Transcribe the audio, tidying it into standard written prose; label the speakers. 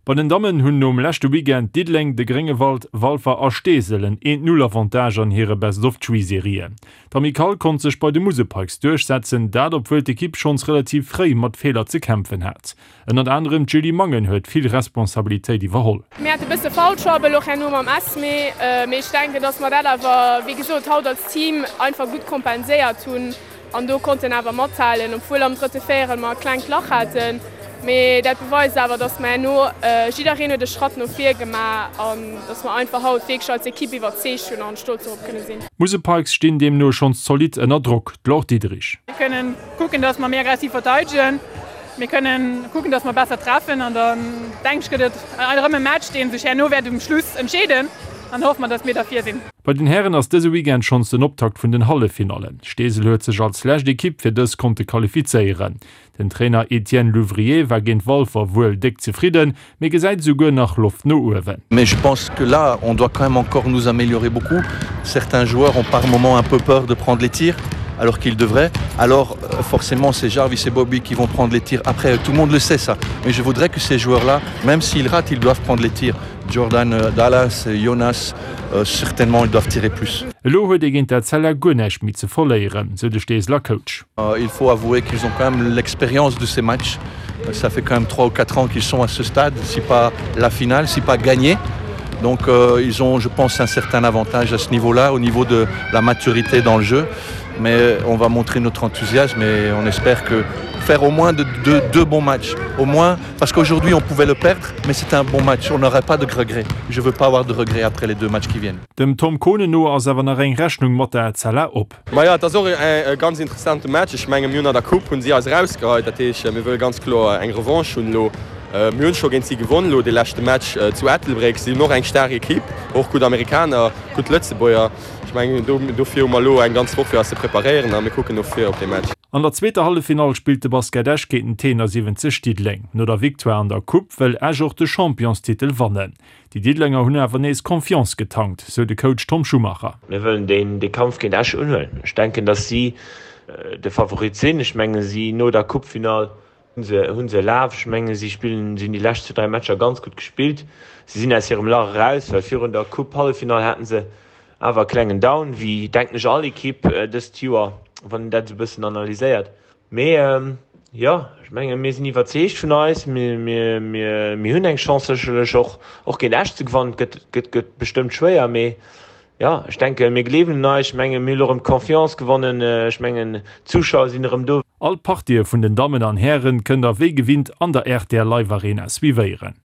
Speaker 1: Bei den Dammen hunn nom leschte Weekend Diddeleng, de Gréngewald, Walfer a Steesel en Eent-Null-Avantage an hire Best-of-Three-Serien. D'Amicale konnt sech bei de Musel Pikes duerchsetzen, dat obwuel d'Ekipp schonns relativ fréi mat Feeler ze kämpfen hat. Ënnert anerem d'Julie Mangen huet vill Responsabilitéit iwwerholl.
Speaker 2: Mir hate bësse Foul Trouble och herno mam Esmée, mee ech denken, dass mer dat awer, wéi gesot, haut als Team einfach gutt kompenséiert hunn an do konnten awer mathalen, obwuel am drëtte Véierel mer e klengt Lach haten. Mee dat beweist awer, dass mer herno, jiddereen huet e Schratt no vir gemaach an dass mer einfach haut wierklech als Ekipp iwwerzeegt hunn an stolz dorop kënne sinn.
Speaker 1: D'Musel Pikes stinn deemno schonns zolidd ënner Drock, d'Laure Diederich.
Speaker 3: Mir kënnen kucken, dass mer méi aggressiv verteidegen. Mir kënnen kucken, dass mer besser treffen an dann, denken ech, gëtt et erëm e Match, dee sech herno wäert um Schluss entscheeden an hoffe mer, dass mir da vir sinn.
Speaker 1: Bei den Hären ass dëse Weekend schonns den Optakt vun den Halleffinallen. Steesel huet sech als lescht Ekipp fir dës konnte qualifizéieren. Den Trainer Etienne Louvrier war géint Walfer wuel déck zefridden, mee gesäit esouguer nach Loft no uewen.
Speaker 4: Mais je pense que là on doit quand même encore nous améliorer beaucoup. Certains joueurs ont par moments un peu peur de prendre les tirs alors qu'ils devraient. Alors euh, forcément c'est Jarvis et Bobby qui vont prendre les tirs après tout le monde le sait ça. Mais je voudrais que ces joueurs là, même s'ils ratent, ils doivent prendre les tirs. Jordan euh, Dallas, Jonas, euh, certainement ils doivent tirer plus.
Speaker 1: Elo huet ee géint Etzella guer näischt méi ze verléieren, sou de Steeseler Coach.
Speaker 4: Euh, il faut avouer qu'ils ont quand même l'expérience de ces matchs. Ça fait quand même 3 ou 4 ans qu'ils sont à ce stade, si pas la finale, si pas gagné. Donc euh, ils ont, je pense, un certain avantage à ce niveau-là, au niveau de la maturité dans le jeu. Mais on va montrer notre enthousiasme et on espère que faire au moins de, de, deux bons matchs. Au moins, parce qu'aujourd'hui on pouvait le perdre, mais c'était un bon match. On n'aurait pas de regrets. Je veux pas avoir de regrets après les deux matchs qui viennent.
Speaker 1: Dem Tom Kohnen no ass awer nach eng Rechnung mat der Etzella op.
Speaker 5: Majo, et ass och e ganz interessante Match. Ech menge mir hunn an der Coupe hunn si eis erausgeheit. Dat heescht, mir wëlle ganz kloer eng Revanche hunn elo. Mir hunn scho géint si gewonn elo dee leschte Match zu Ettelbréck. Si hunn och eng staark Ekipp, och gutt Amerikaner, gutt Lëtzebuerger. Ech mengen dofir hu mer elo eng ganz Woch fir eis ze preparéieren a mir kucken no vir op dee Match.
Speaker 1: An der zweeter Halleffinall spillt de Basket Esch géint den T71 Diddeleng. No der Victoire an der Coupe wëll Esch och de Championstitel wannen. Déi Diddelenger hunn awer nees Confiance getankt, sou de Coach Tom Schumacher.
Speaker 6: Mir wëllen dee Kampf géint Esch unhuelen. Ech denken, datt si de Favorit sinn. Ech menge si no der Coupefinall hunn se e Laf. Ech menge si spillen, si hunn déi lescht 2, 3 Matcher ganz gutt gespillt. Si sinn aus hirem Lach eraus, well virun der Coupe-Halleffinall haten se awer e klengen Down, wéi denken ech all Ekipp dëst Joer, wann een dat esou e bëssen analyséiert. Mee jo, ech menge mir sinn iwwerzeegt vun eis. Mir hunn eng Chance sécherlech och och géint Esch ze gewannen. Et gëtt gëtt bestëmmt schwéier, mee jo, ech denke mir gleewen un eis. Ech menge mir hunn elo erëm d'Confiance gewonnen. Ech mengen d'Zuschauer sinn erëm do.
Speaker 1: All d'Partië vun den Dammen an Hären kënnt der wéi gewinnt an der rtl Live Arena suivéieren.